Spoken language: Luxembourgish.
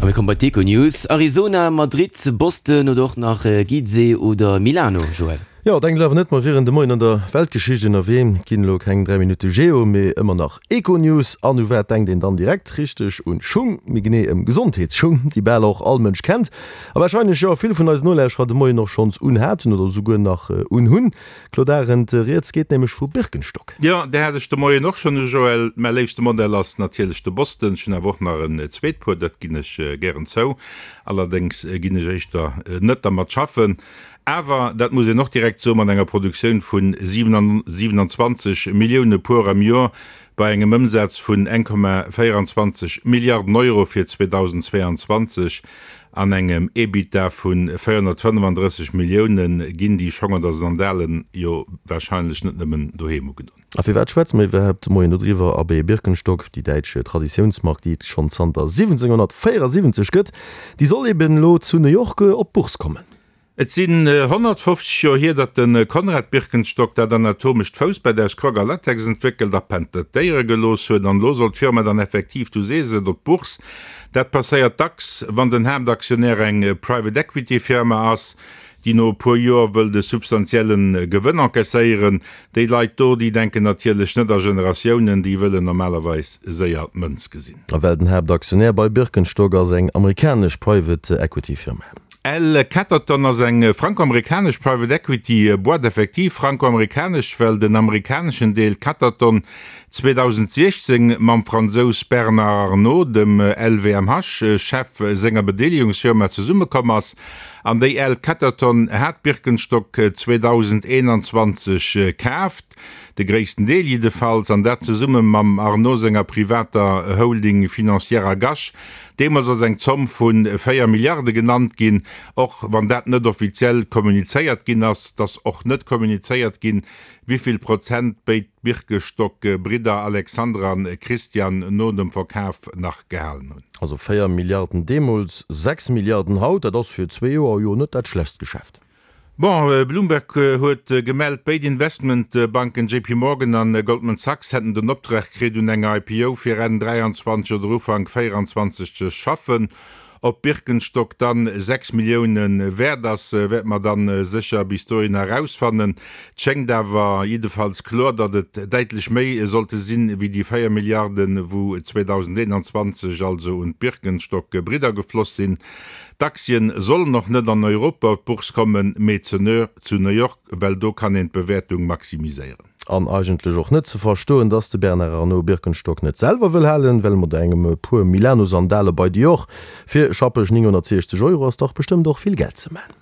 A mir komme bei d'Econews. Arizona, Madrid, Boston oder och nach Gizeh oder Milano, Joël? Jo, denkt awer net, mer wieren de Moien an der Weltgeschicht ënnerwee. Et ginn elo keng 3 Minutte Geo, mee ëmmer nach Econews. An u wat denkt een dann direkt? Richteg, un Schung, méi genee ëm Gesondheetsschung, déi bal och all Mënsch kennt a warscheinlech jo vill vun eisen Nolauschterer de Moien och schonns unhaten oder esouguer nach unhunn. Claude Arend, Rieds geet nämlech vu Birkenstock. Jo, där hat ech de Moien och schonn u, Joël. Mäi léifste Modell ass natierlech de Boston. Ech hunn awer och nach en zweet Puer, dat ginn ech gären zou. Allerdéngs ginn ech éischter net dermat schaffen. Awer, dat muss een och direkt soen, mat enger Produktioun vu 27 Millioune Puer am Joer, bei engem Ëmsaz vun 1,24 Milliarden Euro fir 2022 an engem Ebitda vu 435 Millioune ginn déi Schong oder Sandalen jo warscheinlech net nëmmen doheem ugedon. A firwat schwätze mer iwwerhaapt de Moien dodriwwer? Abee, Birkenstock, déi däitsch Traditiounsmark, déi et schonn zanter 1774 gëtt, déi soll eben elo zu New York op d'Bourse kommen. Et sinn 150 Joer hier, datt de Konrad Birkenstock dat anatomescht Foussbett aus Croc a Latex entwéckelt a patentéiere gelooss huet. An elo soll d'Firma dann effektiv, du sees et, op d'Bourse. Dat passéiert dacks, wann den Haaptaktionär eng Private Equity Firma ass, déi no e puer Joer wëllt e substantielle Gewënn encaisséieren. Déi Leit do, déi denken natierlech net a Generatiounen, déi wëllen normalerweis séier d'Mënz gesinn. A well den Haaptaktionär bei Birkenstock ass eng amerikanesch Private Equity Firma. L Catterton ass eng franko-amerikanesch Private Equity Boîte, effektiv franko-amerikanesch, well den amerikaneschen Deel Catterton 2016 mam Fransous Bernard Arnault, dem LVMH-Chef senger Bedeelegungsfirma, zesummekomm ass. An déi L Catterton hat Birkenstock 2021 kaaft, de gréissten Deel jiddefalls, an dat zesumme mam Arnault senger privater Holding Financière Agache. Deemools ass eng Zomm vu 4 Milliarde genannt ginn, och wann dat net offiziell kommunizéiert ginn ass. Et ass och net kommunizéiert ginn, wivill Prozent béid Birkestock-Bridder Alexander an Christian no dem Verkaf nach gehalen hunn. Also 4 Milliarden deemools, 6 Milliarden haut, dat ass fir zwee Joer jo net dat schlechtst Geschäft. Bon, Bloomberg huet gemellt, béid Investmentbanken JP Morgan an Goldman Sachs hätten den Optrag kritt, un enger IPO fir Enn 23 oder Ufank 24 ze schaffen. Ob Birkenstock dann 6 Millioune wäert ass, wäerte mer dann sécher bis dohinner erausfannen. Et schéngt awer jiddefalls kloer, datt et däitlech méi sollte sinn, wéi déi 4 Milliarden, wou 2021 also un d'Birkenstock-Bridder gefloss sinn. D'Aktien sollen och net an Europa op d'Bourse kommen, mee zu New York, well do kann een d'Bewäertung maximiséieren. An eigentlech och net ze verstoen, dass de Bernard Arnault Birkenstock net selwer wëll halen, well mat engem puer Milano-Sandale bei Dior fir schappeg 960 Euro ass dach bestëmmt och vill Geld ze man.